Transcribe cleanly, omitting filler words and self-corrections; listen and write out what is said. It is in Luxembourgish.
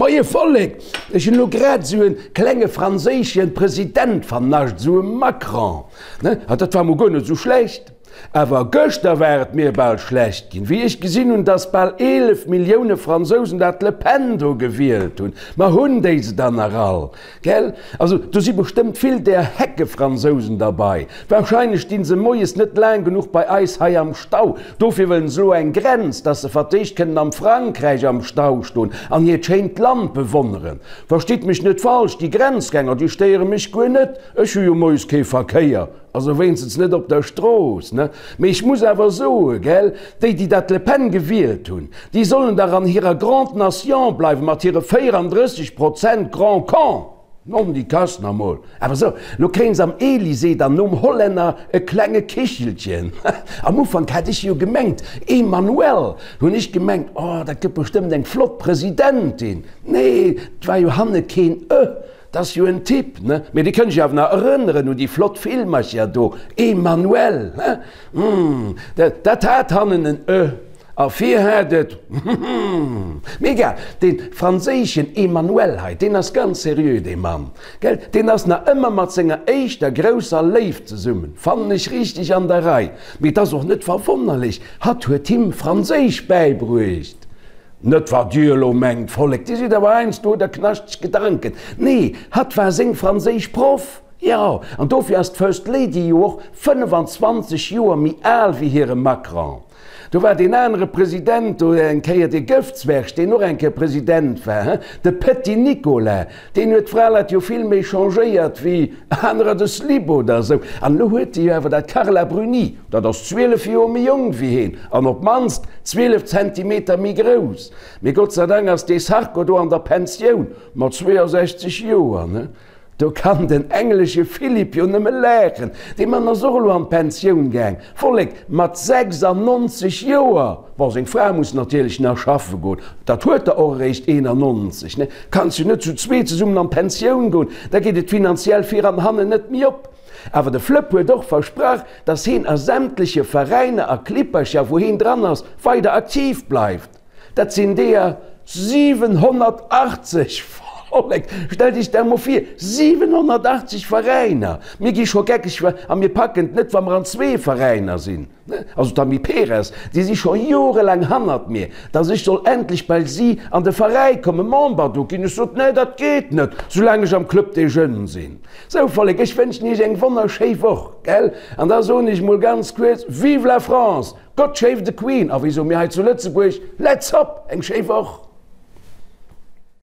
Moie Vollek, ech hunn elo grad esou e klenge franséische President vernascht, esou e Macron, ne? A dat war mol guer net esou schlecht. Awer gëschter war et mir bal schlecht ginn, wéi ech gesinn hunn, dass bal 11 Millioune Fransousen dat Le Pen do gewielt hunn. Ma hunn déi se dann nach all? Gell? Also do si bestëmmt vill där Heckefransousen derbei. Wahrscheinlech stinn se moies net laang genuch bei eis hei am Stau. Dofir wëllen se elo eng Grenz, dass se vertéischt kënnen am Frankräich am Stau stoen an hiert schéint Land bewonneren. Verstitt mech net falsch, déi Grenzgänger, déi stéiere mech guer net. Ech hu jo moies kee Verkéier. Also wéinstens net op der Strooss, ne? Mee ech muss awer soen, gell, déi, déi dat Le Pen gewielt hunn, déi sollen dach an hirer Grande Nation bleiwen mat hire 34 Prozent Grand Con! Non, déi Kass nach mol. Awer sou, lo kréien se am Elysée dann nom Hollänner e klenge Kichelchen. Am Ufank hat ech jo gemengt, Emmanuelle, hunn ech gemengt, oh, dat gëtt bestëmmt eng flott Presidentin. Nee, 't war jo hanne keen e. 't ass jo en Typ, ne? Mee Dir kënnt iech awer nach erënneren un déi flott Filmercher do, Emmanuelle, he? Hm, dat, dat hat hannen en e a vir hat et, hm, mee egal, dee franséischen Emmanuel hei, deen ass ganz seriö, dee Mann, gell? Deen ass nach ëmmer mat senger éischter grousser Léift zesummen, fannen ech richteg an der Rei. Mee 't ass och net verwonnerlech, hatt huet him Franséisch bäibruecht. Net wat Dir elo mengt, Vollek, Dir sidd awer heiansdo hutt Der knaschteg Gedanken. Nee, hatt war seng franséisch Proff, jo, an dofir ass d'First Lady jo och 25 Joer méi al wéi hire Macron. Do war deen anere President do eng Kéier, dee Gëftzwerg, deen och eng Kéier President war, he, de Petit Nicolas, deen huet d'Fraleit jo vill méi changéiert wéi anerer de Slip oder esou. An elo huet e jo awer dat Carla Bruni, Dat ass 12 Joer méi jonk wéi heen an op d'mannst 12 Zentimeter méi grouss. Mee Gott sei Dank ass dee Sarko do an der Pensioun, mat 62 Joer, ne? Do kann den englesche Philipp jo nëmme laachen. Dee Mann ass och elo an d'Pensioun gaang, Vollek, mat 96 Joer! Bon, seng Fra muss natierlech nach schaffe goen, dat huet der och eréischt 91, ne? Kanns jo net zu zwee zesummen an d'Pensioun goen, da geet et finanziell vir an hannen net méi op. Awer de Flëpp huet och versprach, dass heen a sämtleche Veräiner a Klippercher, wou heen dran ass, weider aktiv bleift. Dat sinn deeër 780! Vollek, stellt iech dat mol vir, 780 Veräiner! Mir gi scho geckeg a mir packen et net, wa mer an zwee Veräiner sinn. Also d'Amy Perez, déi si scho jorelaang hannert mir, dass ech soll endlech bei si an de Veräi kommen, Member do ginn. Ech sot, Nee, dat geet net, soulaang ech am Club des Jeunes sinn. Sou Vollek, ech wënschen iech eng wonnerschéi Woch, gell? An da soen ech mol ganz kuerz, Vive la France, God shave the Queen, a wéi soe mir hei zu Lëtzebuerg, Let's hop! Eng schéi Woch!